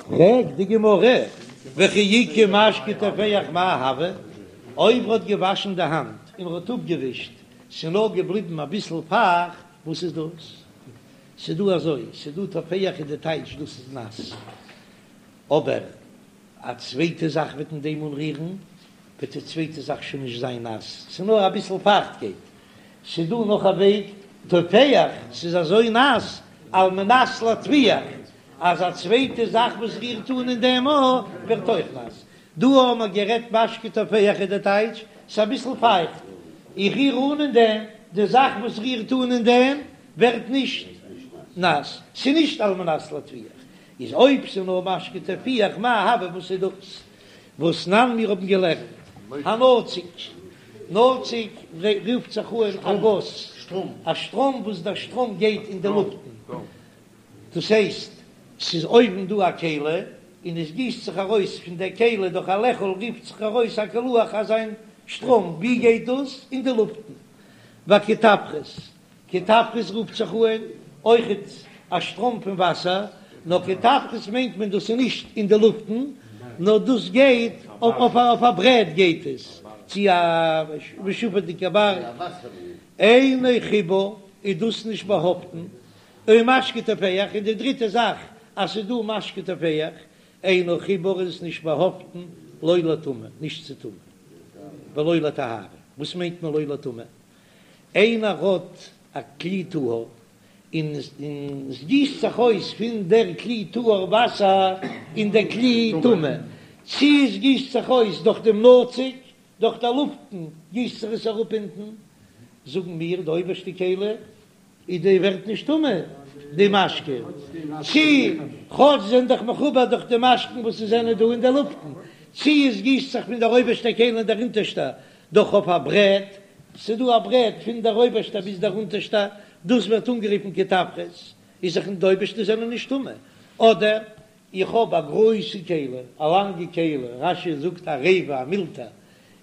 פרעגט די גמרא, וכי איכא משקה טופח מאי הוי, אויב ער האט געוואשן די האנט און ער האט אפגעווישט, ס'איז נאר געבליבן אביסל פייכט, וואס איז דאס? ס'איז דא אזוי, ס'איז דא טופח איז די טייטש דאס איז נאס, אבער א צווייטע זאך וועט אין דעם אנרירן, וועט די צווייטע זאך שוין נישט זיין נאס, ס'איז נאר אביסל פייכטקייט. ס'איז דא נאך א וועג, טופח, ס'איז אזוי נאס, על מנת להטפיח, אז א צווייטע זאך וואס רירט אן אין דעם אויך ווערט אויך נאס. דא האבן מיר גערעדט משקה טופח איז די טייטש, ס'איז אביסל פייכט, איך ריר אן אין דעם, די זאך וואס רירט אן אין דעם ווערט נישט נאס, ס'איז נישט על מנת להטפיח. איז אויב ס'איז נאר משקה טופח מאי הוי וואס איז דאס והתנן מיר האבן געלערנט הנצוק, נצוק רופט זיך אן א גאס, א שטראם וואס דער שטראם גייט אין די לופטן, דאס הייסט ס'איז אויבן דא א כלי און עס גיסט זיך ארויס פון דער כלי דורך א לעכל רופט זיך ארויס א קילוח אזא שטראם, ווי גייט דאס? אין די לופטן. והקטפרס, קטפרס רופט זיך אן אויכעט א שטראם פון וואסער, נאר קטפרס מיינט מען דאס איז נישט אין די לופטן, נאר דאס גייט אויף א ברעט גייט עס, צו א משופעדיגע בארג, אינו חיבור איז דאס נישט באהאפטן, ומשקה טופח, און די דריטע זאך אז ס'איז דא משקה טופח, אינו חיבור איז עס נישט באהאפטן לא לטומאה, נישט צו טומאה, ולא לטהרה, וואס מיינט מען לא לטומאה? איינער האט א כלי טהור און עס גיסט זיך אויס פון דער כלי טהור וואסער אין דער כלי טמא, צי עס גיסט זיך אויס דורך דעם נצוק, דורך דער לופטן גיסט זיך עס אראפ אונטן, זאגן מיר די אויבערשטע כלי איז די ווערט נישט טמא די משקה, צי כאטש זענען דאך מחובר דורך די משקין וואס עס זענען דא אין די לופטן, צי עס גיסט זיך פון דער אויבערשטער כלי אין דער אונטערשטער דורך אויף א ברעט, ס'איז דא א ברעט פון דער אויבערשטער ביז דער אונטערשטער, דאס ווערט אנגערופן קטפרס, איז זיך די אויבערשטע זענען נישט טמא, אדער איך האב א גרויסע כלי, א לאנגע כלי, רש"י זאגט עריבה, א מולטער,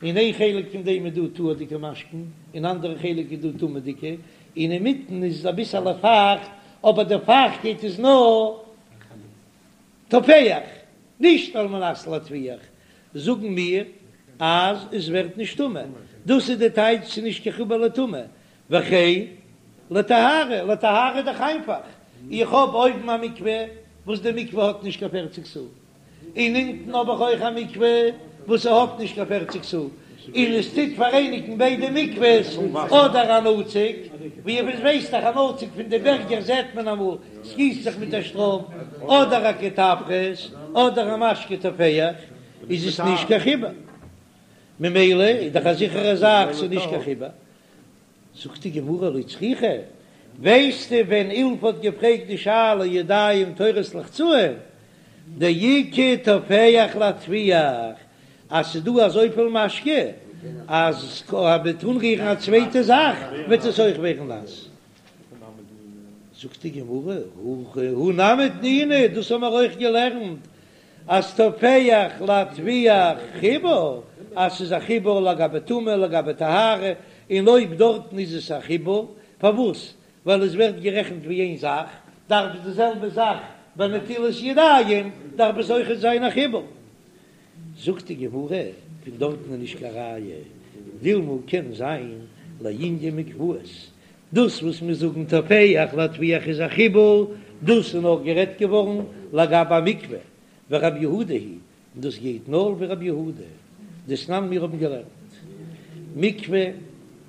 אין איין חלק פון דעם איז דא טהור'דיגע משקין, אין אנדערע חלק איז דא טמא'דיגע, און אינמיטן איז אביסעלע פייכט, אבער די פייכטקייט איז נאר טופח, נישט על מנת להטפיח, זאגן מיר אז עס ווערט נישט טמא, דאס איז די טייטש ס'איז נישט קיין חיבור לטומאה, וכן לטהרה, לטהרה איז דאך איינפאך, איך האב אויבן א מקווה וואס די מקווה האט נישט קיין פערציג סאה, און אונטן האב איך אויך א מקווה וואס ס'האט נישט קיין פערציג סאה, און עס טוט פאראייניגן ביידע מקווה'ס, אדער א נצוק, ווי איר ווייסט דאך א נצוק פון די בערגער זעט מען אמאל ס'גיסט זיך מיט א שטראם, אדער א קטפרס, אדער א משקה טופח, איז עס נישט קיין חיבור. ממילא איז דאך א זיכערע זאך ס'איז נישט קיין חיבור. זאגט די גמרא לא צריכא, ווייסטו ווען אילפא האט געפרעגט די שאלה ידיים טהורות לחצאין, דאיכא טופח להטפיח, אז ס'איז דא אזויפיל משקה אז מ'וועט אנרירן א צווייטע זאך וועט עס אויך ווערן נאס. זאגט די גמרא, הא נמי תנינא, דאס האבן מיר אויך געלערנט אז טופח להטפיח חיבור, אז ס'איז א חיבור לגבי טומאה לגבי טהרה, און אויב דארטן איז עס א חיבור, פארוואס? ווייל עס ווערט גערעכנט ווי איין זאך, דארף די זעלבע זאך ביי נטילת ידיים דארף עס אויכעט זיין א חיבור. זאגט די גמרא, פון דארטן איז נישט קיין ראיה, דילמא קען זיין לענין מקוואות, דאס וואס מיר זאגן טופח להטפיח איז א חיבור, דאס איז נאר גערעדט געווארן לגבי א מקווה, ורבי יהודה היא, און דאס גייט נאר ווי רבי יהודה, דתנן מיר האבן געלערנט מקווה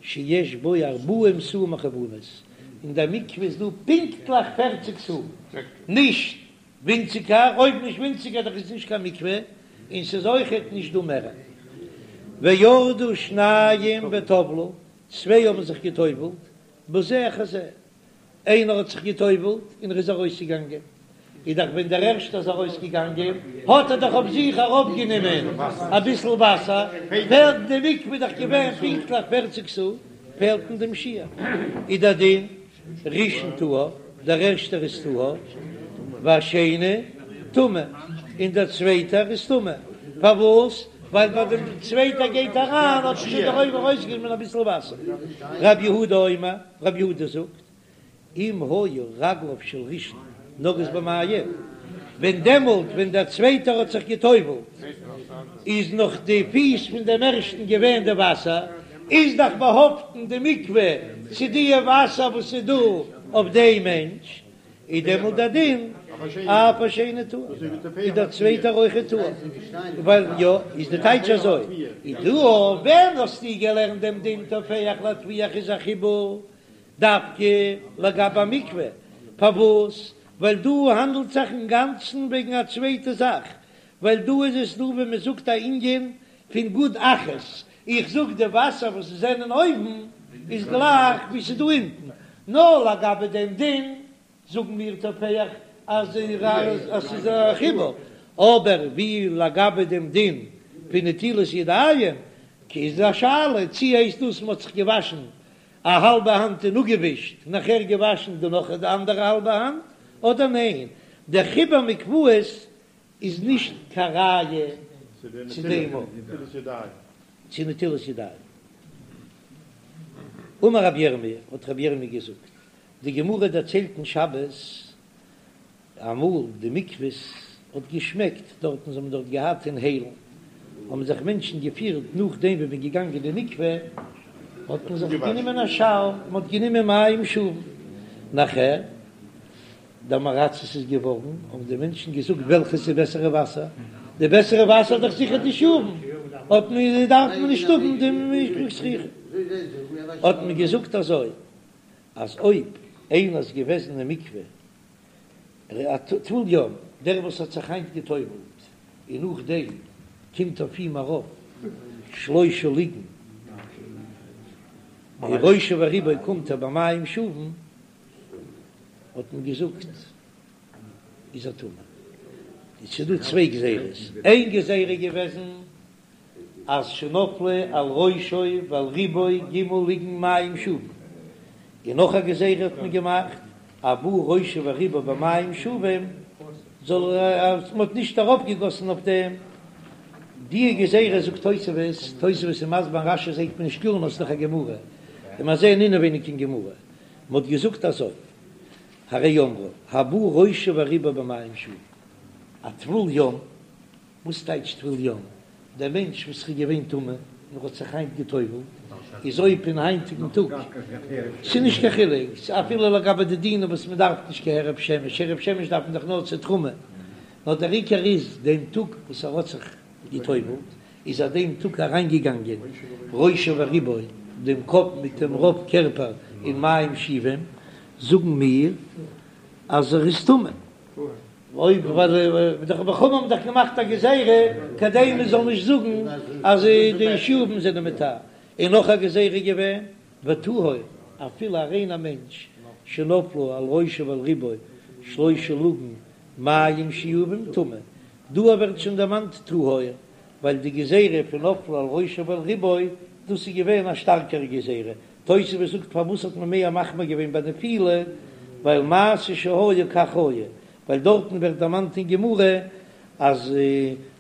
שיש בו ארבעים סאה מכוונות, אין דער מקווה איז דא פונקטליך פערציג סאה, נישט ווינציגער, אויב נישט ווינציגער דאך איז נישט קיין מקווה, און ס'איז אויכעט נישט דא מער. וירדו שניים וטבלו, צוויי האבן זיך געטובלט, בזה אחר זה, איינער האט זיך געטובלט און ער איז ארויסגעגאנגען, איז דאך ווען דער ערשטער איז ארויסגעגאנגען האט ער דאך אויף זיך ארויפגענומען אביסל וואסער, פעלט די מקווה איז דאך געווען פונקטליך פערציג סאה, פעלט אין דעם שיעור, איז דער דין ראשון טהור, דער ערשטער איז טהור, והשני טמא, און דער צווייטער איז טמא, פארוואס? ווייל ביי דעם צווייטער גייט אריין האט שוין דער אויבער ארויסגענומען אביסל וואסער. רב יהודה אומר, רב יהודה זאגט, אם היו רגליו של ראשון נוגעות במים. ווען דעמאלט ווען דער צווייטער האט זיך גע'טובל'ט איז נאך די פיס פון דעם ערשטן געווען די וואסער, איז דאך באהאפטן די מקווה צו די וואסער וואס איז דא אויף דעם מענטש, איז דעמאלט דער דין אף השני טהור, איז דער צווייטער אויכעט טהור, ווייל יא, איז די טייטש אזוי, איז דא ווען האסטו געלערנט דעם דין טופח לטפיח איז א חיבור דווקא לגבי א מקווה, פארוואס? ווייל דא האנדלט זיך אינגאנצן וועגן א צווייטע זאך, ווייל דא איז עס דא ווי מען זאגט א ענין פון גוד אחית, איך זאג די וואסער וואס עס זענען אויבן איז גלייך ווי ס'איז דא אונטן, נאר לגבי דעם דין זאגן מיר טופח אז ס'איז א חיבור, אבער ווי לגבי דעם דין פון נטילת ידיים איז א שאלה צי הייסט דאס מ'האט זיך געוואשן א האלבע האנט און אפגעווישט, נאכער געוואשן די נאך די אנדערע האלבע האנט, אדער ניין, דער חיבור מקוואות איז נישט קיין ראיה צו דעם צו נטילת ידיים. אמר רבי ירמי', האט רבי ירמי' געזאגט, די גמרא דערציילט אין שבת, אמאל די מקוואות האט געשמעקט דארטן, זיי האבן דארט געהאט אין היילן, האבן זיך מענטשן געפירט נאכדעם ווי מ'איז געגאנגען אין די מקווה, האט מען זיך גענומען א שאוער, מען האט גענומען מים שאובים, נאכער די עם הארצות איז געווארן, האבן די מענטשן געזאגט וועלכעס איז בעסערע וואסער, די בעסערע וואסער איז דאך זיכער די שאובין, האט מען דארף מען נישט האבן די מקווה זכוכית, האט מען געזאגט אזוי, אז אויב איינער איז געוועזן אין מקווה א טבול יום, דער וואס האט זיך היינט גע'טובל'ט און נאכדעם קומט אויף אים ארויף שלושה לוגין, ראשו ורובו קומט ער במים שאובין, האט מען געזאגט איז ער טמא. עס איז דא צוויי גזירות, איין גזירה איז געוועזן אז שנפלו על ראשו ועל רובו ג' לוגין מים שאובין, און נאך א גזירה האט מען געמאכט הבא ראשו ורובו במים שאובים זאל ער אז מען האט נישט ארויפגעגאסן אויף דעם די גזירה זאגט תוספות, תוספות איז מסביר אין רש"י זעט מען נישט קלאר נאר ס'איז דאך א גמרא און מיר זעען אינעווייניג אין גמרא מען האט געזאגט אזוי, הרי אמרו, הבא ראשו ורובו במים שאובים, א טבול יום, וואס טייטש טבול יום? דער מענטש וואס איז געווען טמא און האט זיך היינט גע'טובל'ט, איז אויב אין היינטיגן טאג, ס'איז נישט קיין חילוק, אפילו לגבי די דינים וואס מען דארף נישט קיין הערב שמש, הערב שמש דארף מען דאך נאר צו תרומה, נאר דער עיקר איז דעם טאג וואס ער האט זיך גע'טובל'ט, איז ער דעם טאג אריינגעגאנגען ראשו ורובו, דעם קאפ מיט דעם רוב קערפער אין מים שאובים, זאגן מיר אז ער איז טמא. אויב ווייל די חכמים האבן דאך געמאכט א גזירה כדי מען זאל נישט זאגן אז די שאובים זענען מטהר, און נאך א גזירה געווען וטהור אפילו א ריינער מענטש שנפלו על ראשו ועל רובו שלושה לוגין מים שאובים טמא, דא ווערט שוין דערמאנט טהור ווייל די גזירה פון נפלו על ראשו ועל רובו דאס איז געווען א שטארקערע גזירה, תוספות זאגט פארוואס האט מען מער מחמיר געווען ביי נפילה, ווייל מעשה שהיה כך היה, ווייל דארטן ווערט דערמאנט אין גמרא אז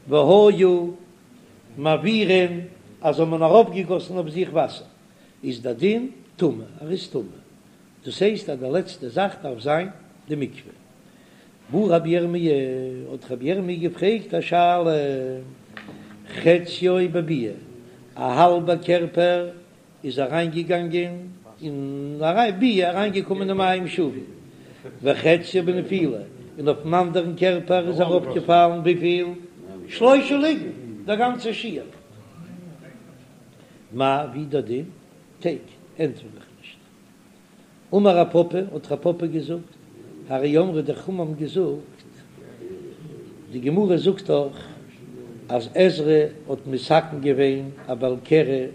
והיו מעבירין אז האט מען ארויפגעגאסן אויף זיך וואסער איז דער דין טמא, ער איז טמא, דאס הייסט אז די לעצטע זאך דארף זיין די מקווה. בעי רבי ירמי', האט רבי ירמי' געפרעגט א שאלה, חציו בביאה, א האלבע קערפער איז אריינגעגאנגען אין ביאה, אריינגעקומען אין מים שאובים, וחציו בנפילה, און אויפן אנדערן קערפער איז ארויפגעפאלן וויפיל? שלושה לוגין, דער גאנצער שיעור. מאי, ווי דער דין? תיקו, ענטפער איך נישט. אמר רב פפא, האט רב פפא געזאגט, הרי אמרו די חכמים האבן געזאגט, די גמרא זאגט דאך אז עזרא האט מתקן געווען א בעל קרי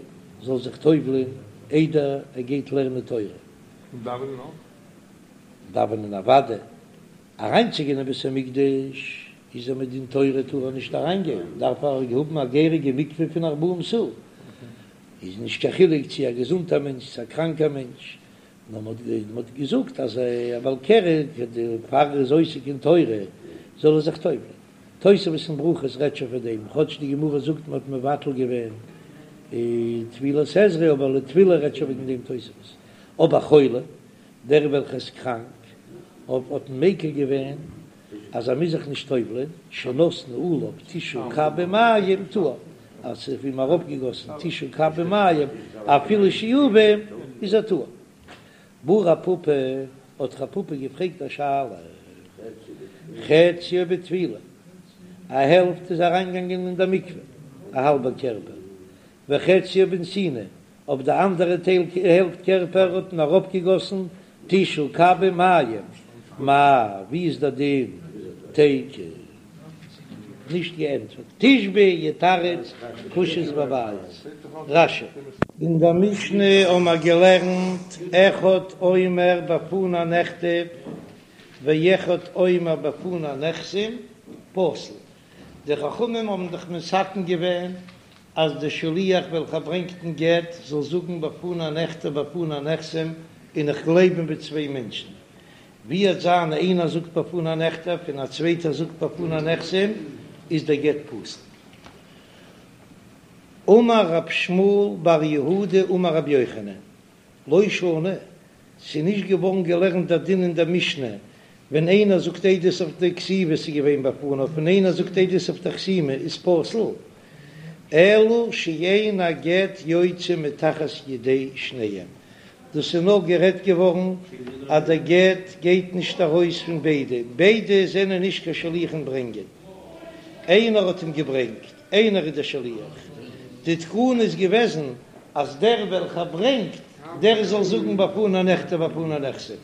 זאל זיך טובל'ען איידער ער גייט לערנען תורה. און דאווענען אויך? דאווענען אוודאי, אריינצוגיין אין בית המקדש איז ער מדין תורה טאר ער נישט אריינגיין, דארף ער האבן א געהעריגע מקווה פון ארבעים סאה. איז נישט קיין חילוק צו א געזונטער מענטש צו א קראנקער מענטש, נאר מען האט געזאגט אז א בעל קרי פאר ער איז עוסק אין תורה זאל ער זיך טובל'ען. תוספות אין ברכות רעדט שוין פון דעם, כאטש די גמרא זאגט מען האט מבטל געווען טבילת עזרא, אבער לטבילה רעדט שוין וועגן דעם תוספות. אבער חולה, דער וועלכער איז קראנק, האט מען מיקל געווען. אז ער מוז זיך נישט טובל'ען, שנתנו עליו תשעה קבין מים טהור, אז ס'איז אויף אים ארויפגעגאסן תשעה קבין מים אפילו שאובים איז ער טהור. בעי רב פפא, האט רב פפא געפרעגט א שאלה, חציו בטבילה, א העלפט איז אריינגעגאנגען אין דער מקווה, א האלבער קערפער, וחציו בנתינה, אויף די אנדערע טייל העלפט קערפער האט מען אראפגעגאסן תשעה קבין מים, מהו, ווי איז דער דין? תיקו. נישט געענטפערט. תשבי יתרץ קושיות ובעיות. רש"י. אין דער משנה האבן מיר געלערנט אחד אומר בפני נכתב ואחד אומר בפני נחתם פסול. די חכמים האבן דאך מתקן געווען אז דער שליח וועלכער ברענגט דעם גט זאל זאגן בפני נכתב בפני נחתם און איך גלייב אים ווי צוויי מענטשן. ווי וועט זיין איינער זאגט בפני נכתב און א צווייטער זאגט בפני נחתם איז דער גט פסול. אמר רב שמואל בר יהודה אמר רבי יוחנן, לא שנו, ס'איז נישט געווארן געלערנט דער דין אין דער משנה, ווען איינער זאגט עדות אויף די כתיבה ס'איז געווען בפניו און איינער זאגט עדות אויף די חתימה איז פסול, אלא שאין הגט יוצא מתחת ידי שניהם, דאס איז נאר גערעדט געווארן אז דער גט גייט נישט ארויס פון ביידע, ביידע זענען נישט קיין שליחים ברענגען, איינער האט אים געברענגט, איינער איז דער שליח, די תקנה איז געוועזן אז דער וועלכער ברענגט דער זאל זאגן בפני נכתב בפני נחתם,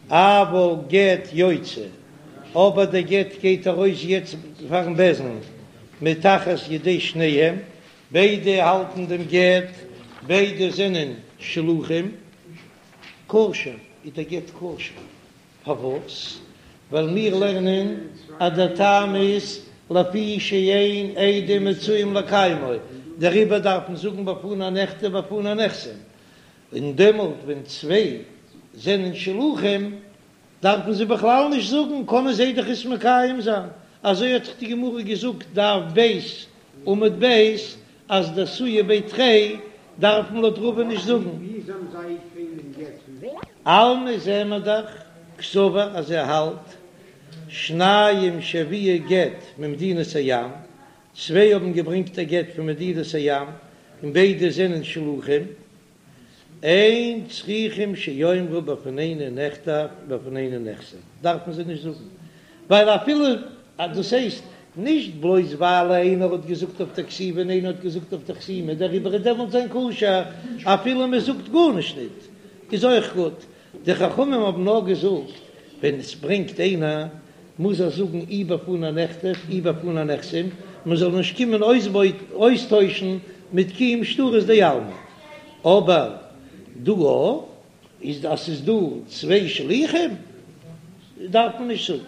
אבל גט יוצא, אבער דער גט גייט ארויס יעצט פארן בית דין מתחת ידי שניהם, ביידע האלטן דעם גט, ביידע זענען שלוחים, כשר איז דער גט כשר, פארוואס? ווייל מיר לערנען אז דער טעם איז לפי שאין עדים מצויים לקיימו, דעריבער דארף מען זאגן בפני נכתב בפני נחתם, און דעמאלט ווען צוויי זענען שלוחים דארפן זיי בכלל נישט זאגן, קענען זיי דאך עס מקיים זיין, אזוי האט דאך די גמרא געזאגט דף ב' עמוד ב', אז דאתויי בי תרי דארף מען לויט רבא נישט זאגן. אלמא זעען מיר דאך קסבר אז ער האלט שניים שהביאו גט ממדינת הים, צוויי האבן געברענגט א גט פון מדינת הים און ביידע זענען שלוחים, אין צריכים שיאמרו בפנינו נכתב בפנינו נחתם, דארף מען זיי נישט זאגן, ווייל אפילו דאס הייסט נישט בלויז ווייל איינער האט געזאגט אויף די כתיבה און איינער האט געזאגט אויף די חתימה דעריבער איז דעמאלט זיין כשר, אפילו מען זאגט גארנישט ניט איז אויך גוט, די חכמים האבן נאר געזאגט ווען עס ברענגט איינער מוז ער זאגן אי בפני נכתב אי בפני נחתם, מען זאל נישט קומען אויסטוישן מיט קיום שטרות דעלמא, אבער דא איז אז ס'איז דא צוויי שליחים דארף מען נישט זאגן.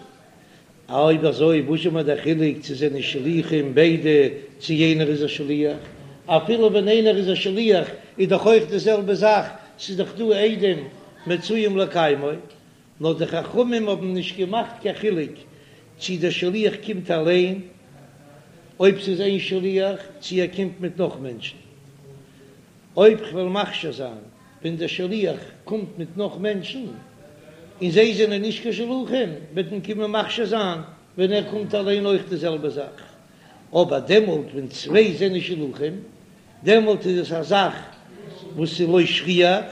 אויב אזוי וואס איז מיר דער חילוק צו זענען שליחים ביידע צו יענער איז א שליח? אפילו ווען איינער איז א שליח איז דאך אויך די זעלבע זאך, ס'איז דאך דא עדים מצויים לקיימו, נאר די חכמים האבן נישט געמאכט קיין חילוק צי דער שליח קומט אליין, אויב ס'איז איין שליח, צי ער קומט מיט נאך מענטשן. אויב כ'וועל מכשיר זיין ווען דער שליח קומט מיט נאך מענטשן, און זיי זענען נישט קיין שלוחים, וועט מען קומען מכשיר זיין ווען ער קומט אליין אויך די זעלבע זאך. אבער דעמאלט ווען צוויי זענען שלוחים, דעמאלט איז עס א זאך וואס איז לא שכיח,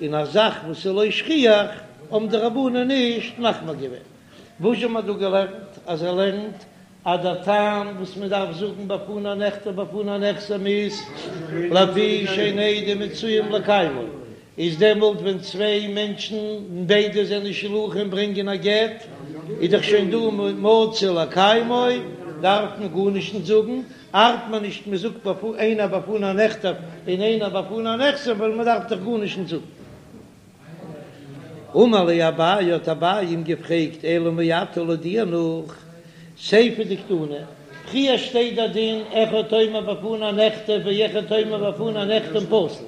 און א זאך וואס איז לא שכיח האבן די רבנן נישט מחמיר געווען. וואס האבן מיר דא געלערנט? אז ער לערנט אז דער טעם וואס מען דארף זאגן בפני נכתב בפני נחתם איז לפי שאין עדים מצויים לקיימו, איז דעמאלט ווען צוויי מענטשן און ביידע זענען שלוחים ברענגען א גט, איז דאך שוין דא מצוי לקיימו, דארף מען גארנישט נישט זאגן, ארט מען נישט מען זאגט איינער בפני נכתב און איינער בפני נחתם ווייל מען דארף דאך גארנישט נישט זאגן. אמר ליה אביי האט אביי אים געפרעגט אלא מעתה לויט דיר נאך סיפא דקתני, פריער שטייט דער דין אחד אומר בפני נכתב ואחד אומר בפני נחתם פסול,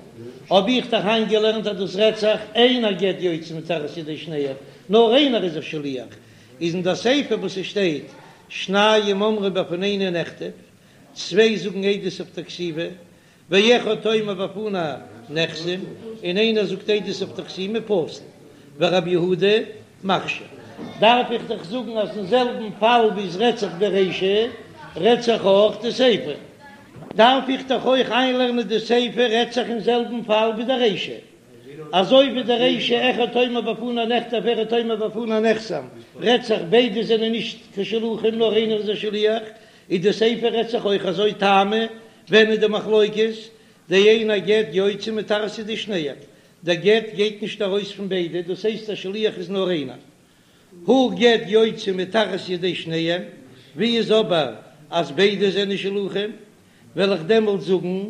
האב איך דאך איינגעלערנט אז דאס רעדט זיך אין הגט יוצא מתחת ידי שניהם, נאר איינער איז א שליח, איז אין דער סיפא וואס עס שטייט שניים אומרים בפנינו נכתב, צוויי זאגן עדות אויף דער כתיבה, ואחד אומר בפני נחתם, און איינער זאגט עדות אויף די חתימה פסול, ורבי יהודה מכשיר. דארף איך דאך זאגן אז אין זעלבן פאל ווי עס רעדט זיך ברישא רעדט זיך אויך די סיפא, דארף איך דאך אויך איינלערנען די סיפא רעדט זיך אין זעלבן פאל ווי די רישא, אזוי ווי די רישא אחד אומר בפני נכתב ואחד אומר בפני נחתם רעדט זיך ביידע זענען נישט קיין שלוחים נאר איינער איז א שליח, איז די סיפא רעדט זיך אויך אזוי טעמא, ווען איז די מחלוקת? דאין הגט יוצא מתחת ידי שניהם, דער גט גייט נישט ארויס פון ביידע, דאס הייסט א שליח איז נאר איינער. הא גט יוצא מתחת ידי שניהם, ווי איז אבער אז ביידע זענען שלוחים, וועל איך דעמאלט זאגן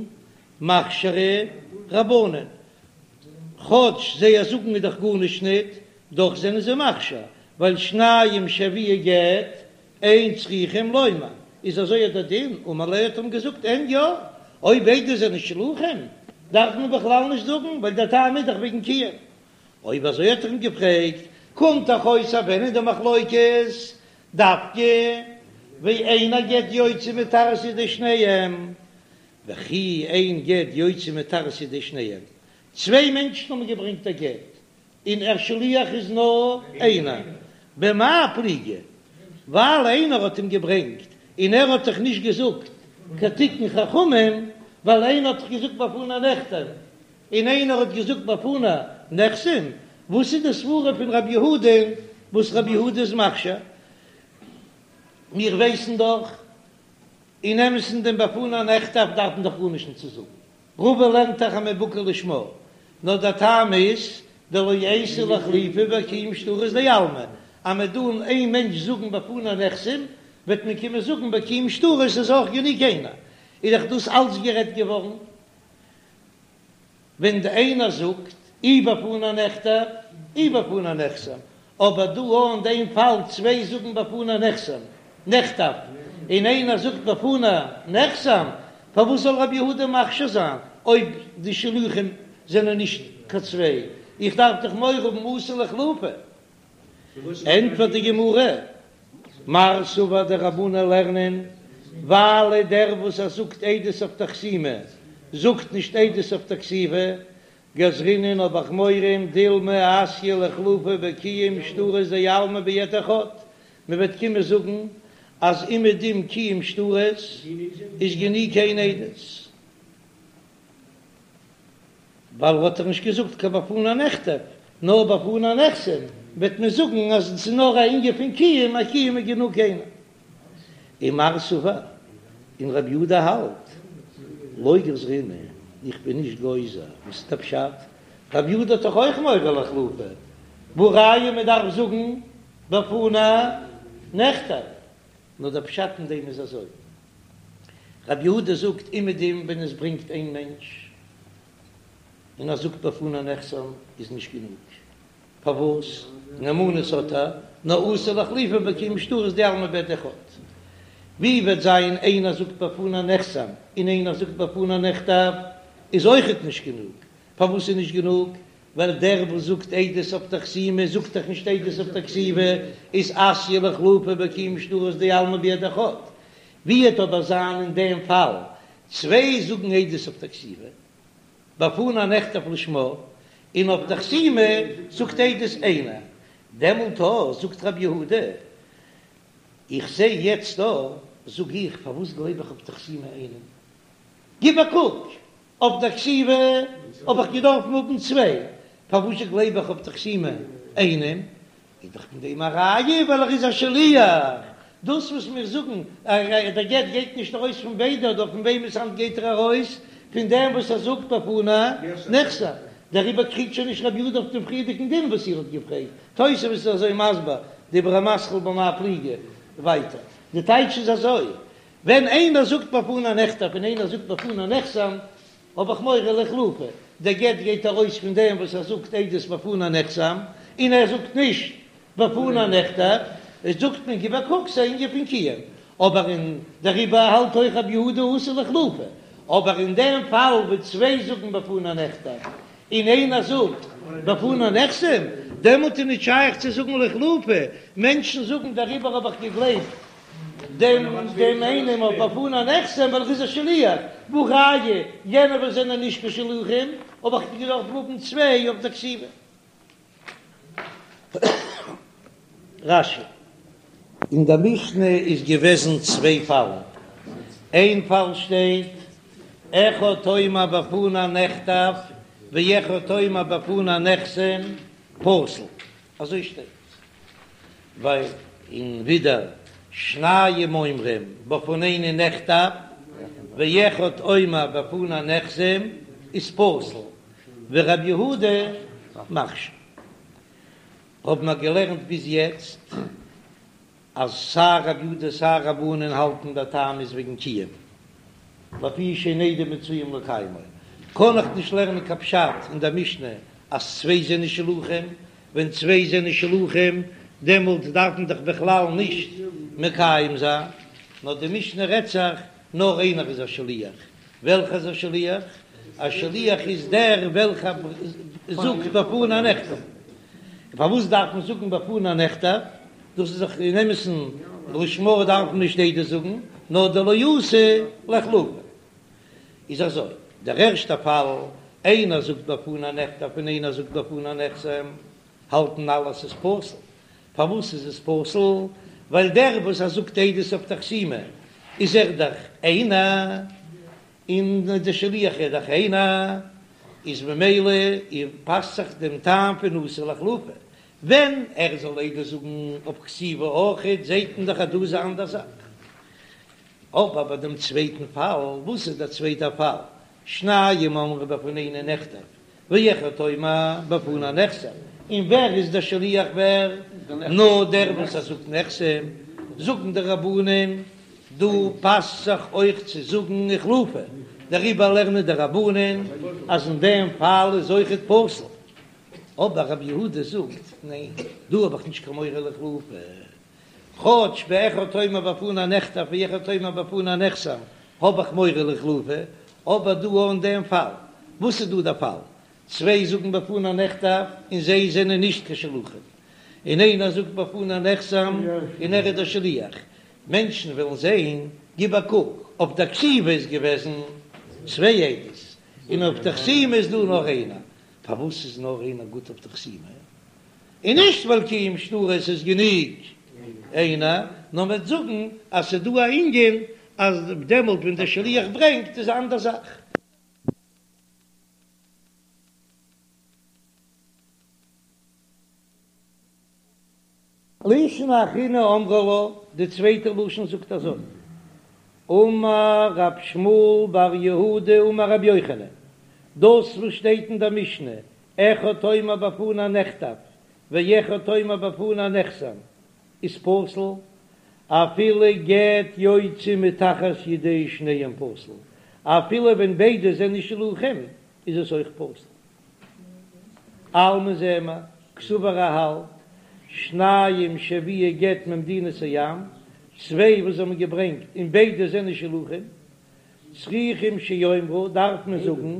מכשירי רבנן, כאטש זייער זאגן איז דאך גארנישט ניט, דאך זענען זיי מכשיר, ווייל שניים שהביאו גט אין צריכים לומר, איז אזוי אט דער דין, אמר ליה האט אים געזאגט אין יא, אויב ביידע זענען שלוחים דארף מען בכלל נישט זאגן, ווייל דער טעם איז דאך וועגן קיום. אויב אזוי האט ער אים געפרעגט, קומט דאך אויס אז ווען איז די מחלוקת דווקא ואין הגט יוצא מתחת ידי שניהם, וכי אין גט יוצא מתחת ידי שניהם, צוויי מענטשן האבן געברענגט א גט, און דער שליח איז נאר איינער, במאי פליגי? ווייל איינער האט אים געברענגט און ער האט דאך נישט געזאגט כתיקון חכמים, ווייל איינער האט דאך געזאגט בפני נכתב און איינער האט געזאגט בפני נחתם, וואס איז די סברה פון רבי יהודה וואס רבי יהודה איז מכשיר? מיר ווייסן דאך אין אמת'ן דעם בפני נכתב דארף מען דאך גארנישט נישט צו זאגן, רבא לערנט דאך אז מ'איז בקי לשמה, נאר דער טעם איז דלא אייתי לאיחלופי בקיום שטרות דעלמא, אז מ'וועט דא איין מענטש זאגן בפני נחתם, וועט מען קומען זאגן בקיום שטרות איז אויך גענוג איינער, איז דאך דאס אלץ גערעדט געווארן ווען די איינער זאגט אי בפני נכתב אי בפני נחתם, אבער דא אין דעם פאל צוויי זאגן בפני נחתם נכתב און איינער זאגט בפני נחתם, פארוואס זאל רבי יהודה מכשיר זיין אויב די שלוחים זענען נישט קיין צוויי? איך דארף דאך מורא האבן אתי לאיחלופי. ענטפערט די גמרא, מר סבר די רבנן לערנען, ווייל דער וואס ער זאגט עדות אויף די חתימה זאגט נישט עדות אויף די כתיבה, גזרינן האב איך מורא דילמא אתיא לאיחלופי בקיום שטרות דעלמא בעד אחד, מען וועט קומען זאגן אז אומעדום קיום שטרות איז גענוג איין עדות. ווייל האט ער נישט געזאגט קיין בפני נכתב, נאר בפני נחתם, וועט מען זאגן אז עס איז נאר א ענין פון קיום, א קיום איז גענוג איינער. ומר סבר, און רבי יהודה האלט, לא גזרינן, איך בין נישט גוזר, וואס איז דער פשט? רבי יהודה האט דאך אויך מורא לאיחלופי, והא ראיה מען דארף זאגן בפני נכתב, נאר דער פשט אין דעם איז אזוי, רבי יהודה זאגט אומעדום ווען עס ברענגט איין מענטש און ער זאגט בפני נחתם איז נישט גענוג, פארוואס? נאמנות האט ער, נאר אתי לאיחלופי בקיום שטרות דעלמא בעד אחד. ווי וועט זיין איינער זאגט בפני נחתם און איינער זאגט בפני נכתב איז אויכעט נישט גענוג, פארוואס איז נישט גענוג? ווייל דער וואס זאגט עדות אויף די חתימה זאגט דאך נישט עדות אויף די כתיבה, איז אתיא לאיחלופי בקיום שטרות דעלמא בעד אחד. ווי וועט אבער זיין אין דעם פאל צוויי זאגן עדות אויף די כתיבה בפני נכתב לשמה, און אויף די חתימה זאגט עדות איינער, דעמאלט אויך זאגט רבי יהודה, איך זע יעצט דא, זאג איך, פארוואס גלייב איך אויף די חתימה איינעם? גיב א קוק, אויף דער כתיבה האב איך געדארפן האבן צוויי, פארוואס גלייב איך אויף דער חתימה איינעם? איז דאך פון דעם א ראיה ווייל ער איז א שליח, דאס וואס מיר זאגן אז דער גט גייט נישט ארויס פון ביידע אדער פון וועמענס האנט גייט ער ארויס? פון דעם וואס ער זאגט בפני נחתם, דעריבער קריגט שוין נישט רבי יהודה אויף דעם פריערדיגן דין וואס איר האט געפרעגט, תוספות איז אזוי מסביר, דיבור המתחיל במאי פליגי, ווייטער, די טייטש איז אזוי, ווען איינער זאגט בפני נכתב און איינער זאגט בפני נחתם, האב איך מורא לאיחלופי, דער גט גייט ארויס פון דעם וואס ער זאגט עדות בפני נחתם, און ער זאגט נישט בפני נכתב, איז זאגט מען גיב א קוק ס'איז א ענין פון קיום, אבער אין דעריבער האלט אויך רבי יהודה אתי לאיחלופי, אבער אין דעם פאל וואו צוויי זאגן בפני נכתב און איינער זאגט בפני נחתם, דעמאלט איז נישט שייך צו זאגן לאיחלופי, מענטשן זאגן דעריבער האב איך געגלייבט דעם דעם איינעם אויף בפני נחתם ווייל ער איז א שליח, והא ראיה יענע וואס זענען נישט קיין שלוחים האב איך געדארפט האבן צוויי אויף די כתיבה. רש"י. אין דער משנה איז געוועזן צוויי פאלן, איין פאל שטייט אחד אומר בפני נכתב ואחד אומר בפני נחתם פסול, אזוי שטייט, ווייל און ווידער שניים אומרים בפנינו נכתב ואחד אומר בפני נחתם איז פסול, ורבי יהודה מכשיר. האבן מיר געלערנט ביז יעצט אז סיי רבי יהודה סיי רבנן האלטן דער טעם איז וועגן קיום, לפי שאין עדים מצויים לקיימו, קען איך נישט לערנען קיין פשט אין דער משנה אז צוויי זענען שלוחים, ווען צוויי זענען שלוחים דעמאלט דארף מען דאך בכלל נישט מקיים זיין, נאר די משנה רעדט זיך נאר איינער איז א שליח, וועלכער איז א שליח? א שליח איז דער וועלכער זאגט בפני נכתב. און פארוואס דארף מען זאגן בפני נכתב? דאס איז דאך אין אמת'ן לשמה דארף מען נישט עדות זאגן, נאר דלא אתי לאיחלופי. איז אזוי, דער ערשטער פאל, איינער זאגט בפני נכתב און איינער זאגט בפני נחתם, האלטן אלע אז ס'איז פסול. פארוואס איז עס פסול? ווייל דער וואס ער זאגט עדות אויף די חתימה איז ער דאך איינער, און דער שליח איז דאך איינער, איז ממילא פאסט זיך דעם טעם פון אתי לאיחלופי. ווען ער זאל עדות זאגן אויף כתיבה אויכעט, זעט מען דאך אז דא איז א אנדער זאך. אבער ביי דעם צווייטן פאל, וואס איז דער צווייטער פאל? שניים אומרים בפנינו נכתב, ואחד אומר בפני נחתם, און ווער איז דער שליח ווער? נאר דער וואס ער זאגט נחתם, זאגן די רבנן, דא פאסט זיך אויך צו זאגן איחלופי, דעריבער לערנען די רבנן אז אין דעם פאל איז אויכעט פסול, אבער רבי יהודה זאגט ניין, דא האב איך נישט קיין מורא לאיחלופי, כאטש באחד אומר בפני נכתב ואחד אומר בפני נחתם האב איך מורא לאיחלופי, אבער דא אין דעם פאל, וואס איז דא דער פאל? צוויי זאגן בפני נכתב און זיי זענען נישט קיין שלוחים, און איינער זאגט בפני נחתם און ער איז דער שליח, מענטשן וועלן זען, גיב א קוק, אויף דער כתיבה איז געוועזן צוויי עדות, און אויף דער חתימה איז דא נאר איינער, פארוואס איז נאר איינער גוט אויף דער חתימה? און נישט ווייל קיום שטרות איז גענוג איינער, נאר מ'וועט זאגן אז ס'איז דא א ענין אז דעמאלט ווען דער שליח ברענגט איז א אנדער זאך. לישנא אחרינא אמרי לה, די צווייטע לשון זאגט אזוי, אמר רב שמואל בר יהודה אמר רבי יוחנן, דאס וואס שטייט אין דער משנה אחד אומר בפני נכתב ואחד אומר בפני נחתם איז פסול, אפילו גט יוצא מתחת ידי שניהם פסול, אפילו ווען ביידע זענען שלוחים איז עס אויך פסול. אלמא זעען מיר, קסבר ער האלט, שניים שהביאו גט ממדינת הים, צוויי וואס האבן געברענגט און ביידע זענען שלוחים, צריכים שיאמרו דארף מען זאגן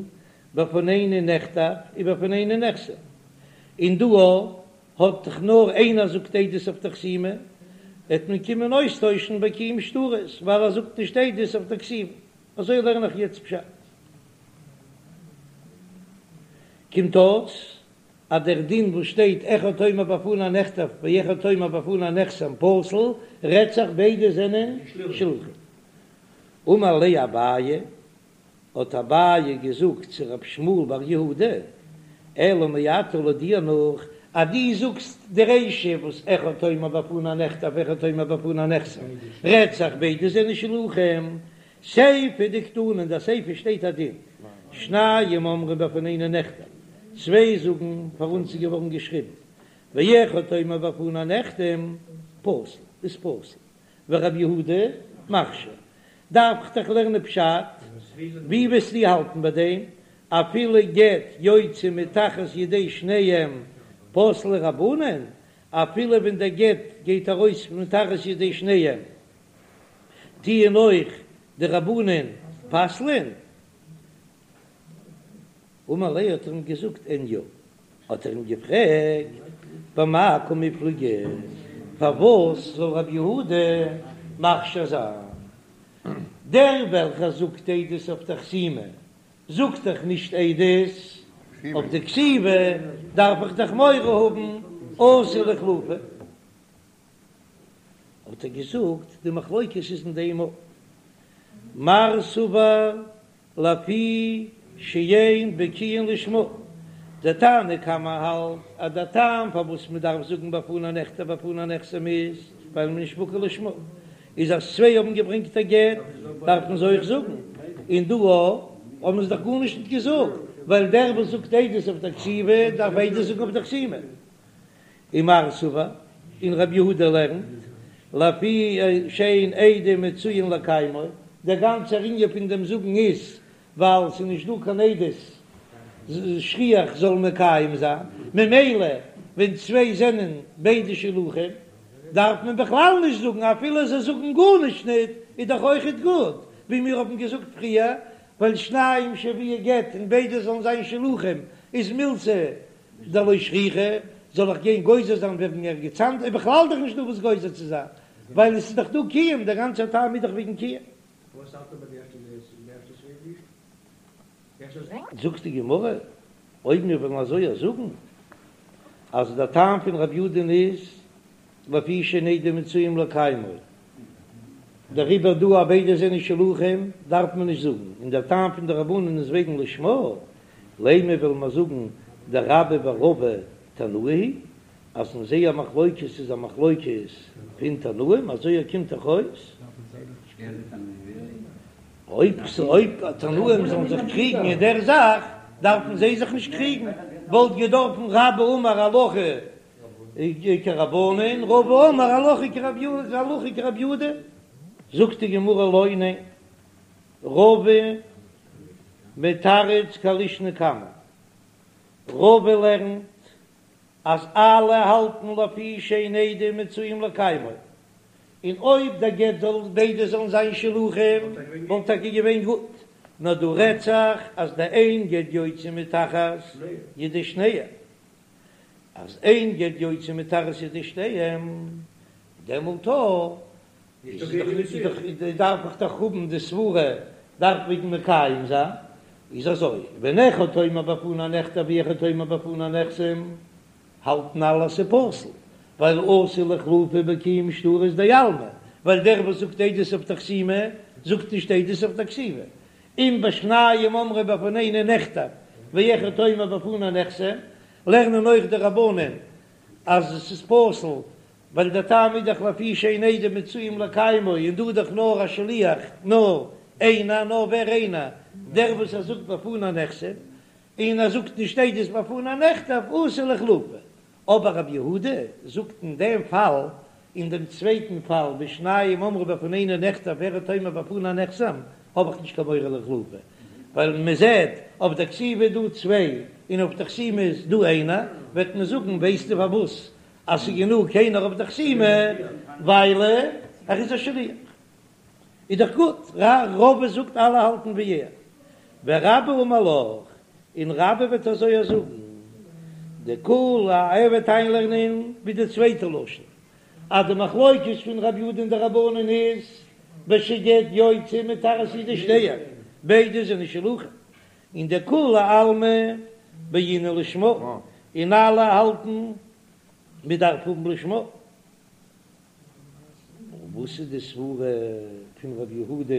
בפנינו נכתב ובפנינו נחתם, און דא האט דאך נאר איינער זאגט עדות אויף די חתימה, וועט מען קומען אויסטוישן ביי קיום שטרות ווייל ער זאגט נישט עדות אויף די כתיבה, אזוי לערן איך יעצט פשט. קומט אויס אז דער דין וואס שטייט אחד אומר בפני נכתב ואחד אומר בפני נחתם פסול רעדט זיך ביידע זענען שלוחים. אמר ליה אביי, האט אביי געזאגט צו רב שמואל בר יהודה, אלא מעתה לויט דיר נאך, אז דו זאגסט די רישא וואס אחד אומר בפני נכתב ואחד אומר בפני נחתם, רעדט זיך ביידע זענען שלוחים, סיפא דקתני אין די סיפא שטייט א דין, שניים אומרים בפנינו נכתב, צוויי זאגן פאר אונז איז געווארן געשריבן, ואחד אומר בפני נחתם, פסול, איז פסול. ורבי יהודה מכשיר. דארף איך דאך לערנען פשט, ווי וועסטו האלטן ביי דעם? אפילו גט יוצא מתחת ידי שניהם פסלי רבנן, אפילו ווען דער גט גייט ארויס מתחת ידי שניהם טוען אויך די רבנן פסל'ען? אמר ליה האט ער אים געזאגט אין יא, האט ער אים געפרעגט במאי קמיפלגי פארוואס זאל רבי יהודה מכשיר זיין דער וועלכער זאגט עדות אויף די חתימה זאגט דאך נישט עדות אויף די כתיבה דארף איך דאך מורא האבן אתי לאיחלופי. האט ער געזאגט, די מחלוקת איז אין דעם מר סבר לפי שאין בקיאין לשמה, דער תנא קמא האלט אז דער טעם פארוואס מען דארף זאגן בפני נכתב בפני נחתם איז ווייל מען איז נישט בקי לשמה, איז אז צוויי האבן געברענגט א גט דארף מען זיי אויך זאגן, און דא האבן זיי דאך גארנישט נישט געזאגט, ווייל דער וואס זאגט עדות אויף דער כתיבה דארף עדות זאגן אויף דער חתימה. ומר סבר, און רבי יהודה לערנט, לפי שאין עדים מצויין לקיימו, דער גאנצער ענין פון דעם זאגן איז ווייל ס'איז נישט דא קיין עדות שכיח זאל מקיים זיין, ממילא ווען צוויי זענען ביידע שלוחים דארף מען בכלל נישט זאגן, אפילו זיי זאגן גארנישט ניט איז דאך אויכעט גוט, ווי מיר האבן געזאגט פריער, ווייל שניים שהביאו גט און ביידע זאלן זיין שלוחים איז מילתא דלא שכיחא, זאל איך גיין גוזר זיין וועגן ערגעץ אנדערש, איז בכלל דאך נישט דא וואס גוזר צו זיין, ווייל עס איז דאך דא קיום, דער גאנצער טעם איז דאך וועגן קיום. זאגט די גמרא, אויב מיר וועלן אזוי זאגן אז דער טעם פון רבי יהודה'ן איז לפי שאין עדים מצויים לקיימו, דעריבער דא אז ביידע זענען שלוחים דארף מען נישט זאגן, און דער טעם פון די רבנן איז וועגן לשמה, לימא וועלן מיר זאגן דרבה ורבא תנאי היא אז אין זייער מחלוקת איז א מחלוקת פון תנאים, אזוי קומט דאך אויס. אויב תנאים זאלן זיך קריגן אין דער זאך דארפן זיי זיך נישט קריגן, וואלט געדארפן רבה אמר הלכה כרבנן, רבא אמר הלכה כרבי יהודה, הלכה כרבי יהודה. זאגט די גמרא לא, ניין, רבא מתרץ כלישנא קמא, רבא לערנט אז אלע האלטן לפי שאין עדים מצויים לקיימו, און אויב דער גט זאל ביידע זאלן זיין שלוחים וואלט טאקע געווען גוט, נאר דא רעדט זיך אז דאין גט יוצא מתחת ידי שניהם, אז אין גט יוצא מתחת ידי שניהם, דעמאלט איז דאך דארף איך דאך האבן די סברה דארף וועגן מקיים זיין, איז אזוי, ווען אחד אומר בפני נכתב ואחד אומר בפני נחתם, האלטן אלע אז ס'איז פסול, ווייל אתי לאיחלופי בקיום שטרות דעלמא, ווייל דער וואס זאגט עדות אויף די חתימה זאגט נישט עדות אויף די כתיבה, און בשניים אומרים בפנינו נכתב ואחד אומר בפני נחתם, לערנען אויך די רבנן אז עס איז פסול, ווייל דער טעם איז דאך לפי שאין עדים מצויים לקיימו, און דא איז דאך נאר א שליח, נאר איינער, נאר ווער איינער? דער וואס ער זאגט בפני נחתם, און ער זאגט נישט עדות בפני נכתב, אתי לאיחלופי. אבער רבי יהודה זאגט אין דעם פאל, אין דעם צווייטן פאל, בשניים אמרו בפנינו נכתב ואחד אומר בפני נחתם, האב איך נישט קיין מורא לאיחלופי, ווייל מען זעט אויף דער כתיבה איז דא צוויי און אויף דער חתימה איז דא איינער, וועט מען זאגן ווייסטו פארוואס אז ס'איז גענוג איינער אויף דער חתימה, ווייל ער איז א שליח. איז דאך גוט, רבא זאגט אלע האלטן ווי ער, ורבה אמר לך, און רבה וועט אזוי זאגן, דכולי ער וועט איינלערנען ווי די צווייטע לשון, אז די מחלוקת פון רבי יהודה און די רבנן איז בשגט יוצא מתחת ידי שניהם, ביידע זענען שלוחים, און דכולי עלמא בעינן לשמה, און אלע האלטן מען דארף האבן לשמה. און וואס איז די סברה פון ר' יהודה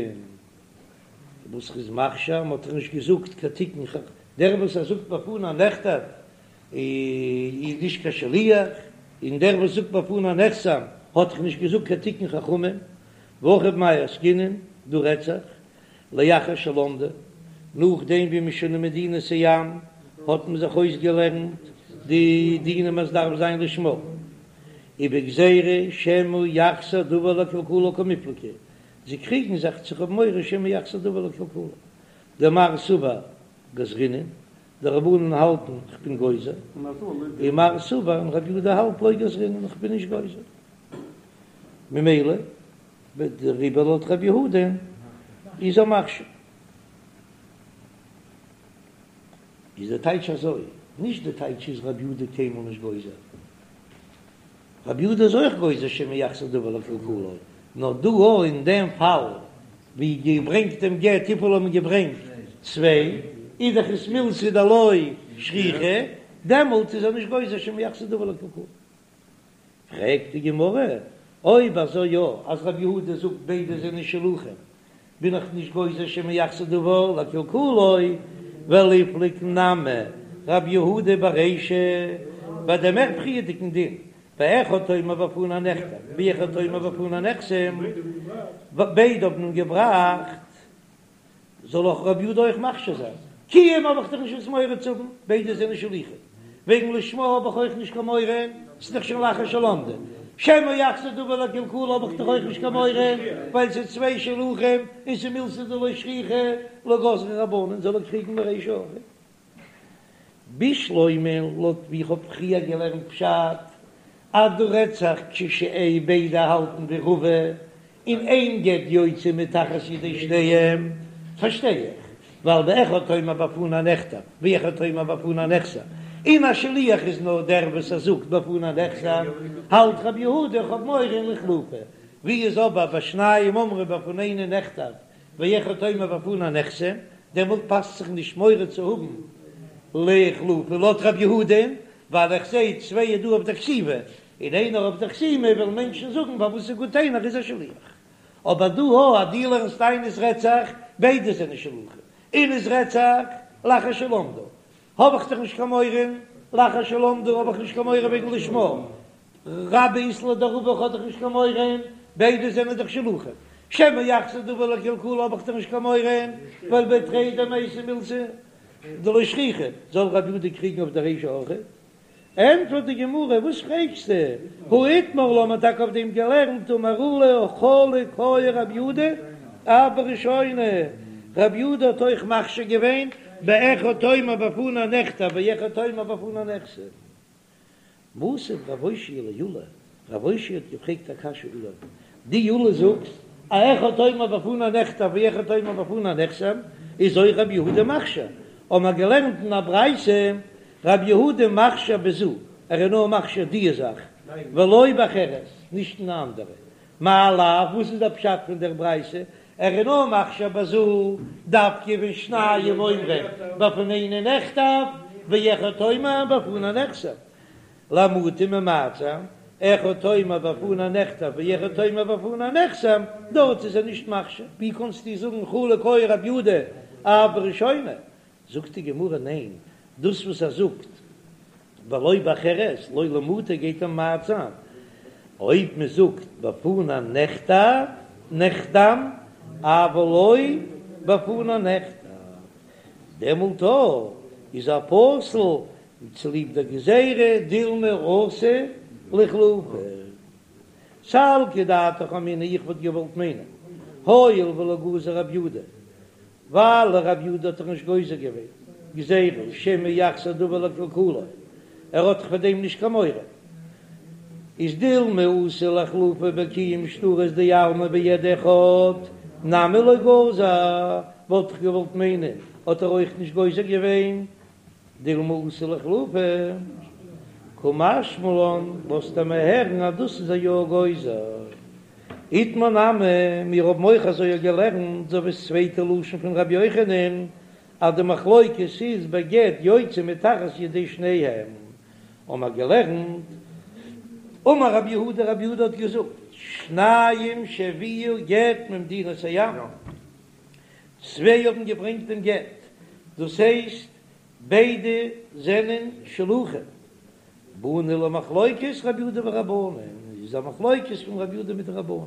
וואס ר'איז מכשיר? מ'האט דאך נישט געזאגט קיין תיקון ח, דער וואס ער זאגט בפני נכתב איז נישט קיין שליח, און דער וואס זאגט בפני נחתם האט דאך נישט געזאגט קיין תיקון חכמים, והכא במאי עסקינן, דא רעדט זיך לאחר שלמדו, נאכדעם ווי מ'איז שוין אין מדינת הים האט מען זיך אויסגעלערנט די דינים אז דארף זיין לשמה, ובגזירה שמא יחזיר דבר לקלקולו קמיפלגי, זיי קריגן זיך צו האבן מורא שמא יחזיר דבר לקלקולו, דמר סבר גזרינן, די רבנן האלטן כ'בין גוזר, ומר סבר און רבי יהודה האלט לא גזרינן כ'בין נישט גוזר, ממילא דעריבער לויט רבי יהודה איז ער מכשיר. איז די טייטש אזוי, נישט די טייטש איז רבי יהודה קיינמאל נישט גוזר, רבי יהודה איז אויך גוזר שמא יחזיר דבר לקלקולו, נאר דא אין דעם פאל ווי געברענגט דעם גט וויפיל האבן געברענגט צוויי, איז דאך עס מילתא דלא שכיחא, דעמאלט איז ער נישט גוזר שמא יחזיר דבר לקלקולו. פרעגט די גמרא. אויב אזוי יא, אז רבי יהודה זאגט ביידע זענען שלוחים, בין איך נישט גוזר שמא יחזור דבר לקלקולו, וליפלוג נמי רבי יהודה ברישא, ביי דעם מער פריערדיגן דין, באחד אומר בפני נכתב ואחד אומר בפני נחתם, ביידע האבן אים געבראכט זאל אויך רבי יהודה אויך מכשיר זיין? קיום האב איך דאך נישט וואס מורא צו האבן, ביידע זענען שלוחים. וועגן לשמה האב איך אויך נישט קיין מורא, ס'איז דאך שוין לאחר שלמדו. שמא יחזור דבר לקלקולו האב איך דאך אויך נישט קיין מורא, ווייל ס'איז צוויי שלוחים און ס'איז מילתא דלא שכיחא, לא גזרו רבנן זאל ער קריגן ברישא אויך. בשלמא לויט ווי איך האב פריער געלערנט פשט אז דא רעדט זיך כשאין ביידע האלטן ווי רבא און אין גט יוצא מתחת ידי שניהם פארשטיי איך ווייל באחד אומר בפני נכתב ואחד אומר בפני נחתם און א שליח איז נאר דער וואס ער זאגט בפני נחתם האלט רבי יהודה איך האב מורא לאיחלופי ווי איז אבער ביי שניים אומרים בפנינו נכתב ואחד אומר בפני נחתם, דעמאלט פאסט זיך נישט מורא צו האבן לאיחלופי לויט רב יהודה'ן, ווייל איך זעה צוויי איז דא אויף דער כתיבה און איינער אויף דער חתימה, וועלן מענטשן זאגן פארוואס איז גוט איינער איז א שליח. אבער דא הא אז דו לערנסט איין עס רעדט זיך ביידע זענען שלוחים און עס רעדט זיך לאחר שלמדו, האב איך דאך נישט קיין מורא, לאחר שלמדו האב איך נישט קיין מורא וועגן לשמה, רבה אית ליה דרבא האב איך דאך נישט קיין מורא, ביידע זענען דאך שלוחים, שמא יחזור דבר לקלקולו האב איך דאך נישט קיין מורא, ווייל בי תרי דמייתי מילתא דלא שכיחא, זאל רבי יהודה קריגן אויף די רישא אויך? ענטפערט די גמרא, וואס פרעגסטו, הא איתמר עלה, מ'האט טאקע אויף דעם געלערנט, אמר עולא חלוק היה רבי יהודה אף בראשונה, רבי יהודה האט אויך מכשיר געווען באחד אומר בפני נכתב ואחד אומר בפני נחתם. מתיב רב אושעיא לעולא, רב אושעיא האט געפרעגט א קשיא עולא, דו עולא זאגסט אז אחד אומר בפני נכתב ואחד אומר בפני נחתם, איז אויך רבי יהודה מכשיר, האבן מיר געלערנט אין א ברייתא רבי יהודה מכשיר בזו, ער איז נאר מכשיר דיע זאך, ולא באחרת, נישט אין א אנדערע, מאי לאו, וואס איז דער פשט פון דער ברייתא, ער איז נאר מכשיר בזו, דווקא ווען שניים אומרים בפנינו נכתב, ואחד אומר בפני נחתם, למעוטי ממעט זיין, אחד אומר בפני נכתב ואחד אומר בפני נחתם, דארט איז ער נישט מכשיר, ווי קענסטו זאגן חלוק היה רבי יהודה אף בראשונה, זאגט די גמרא ניין, דאס וואס ער זאגט ולא באחרת, לא למעוטי גייט ער ממעט זיין, אויב מען זאגט בפני נכתב נחתם אבל לא בפני נכתב, דעמאלט איז ער פסול צוליב דער גזירה דילמא אתי לאיחלופי. סלקא דעתך אמינא איך וואלט געוואלט מיינען הואיל ולא גזר רב יהודה ווייל רב יהודה האט דאך נישט גוזר געווען גזירה שמא יחזור דבר לקלקולו, ער האט דאך פאר דעם נישט קיין מורא, איז דילמא אתי לאיחלופי בקיום שטרות דעלמא בעד אחד נמי לא גזר, וואלט איך געוואלט מיינען האט ער אויך נישט גוזר געווען דילמא אתי לאיחלופי, קא משמע לן לאזט ער מיר הערן אז דאס איז ער יא גוזר. איתמר נמי, מיר האבן אויך אזוי געלערנט, אזוי ווי ס'צווייטע לשון פון רבי יוחנן, אז די מחלוקת איז בגט יוצא מתחת ידי שניהם, האבן מיר געלערנט, אמר רבי יהודה, רבי יהודה האט געזאגט, שניים שהביאו גט ממדינת הים, צוויי האבן געברענגט דעם גט, דאס הייסט ביידע זענען שלוחים, באנו למחלוקת רבי יהודה ורבנן, איז א מחלוקת פון רבי יהודה מיט די רבנן.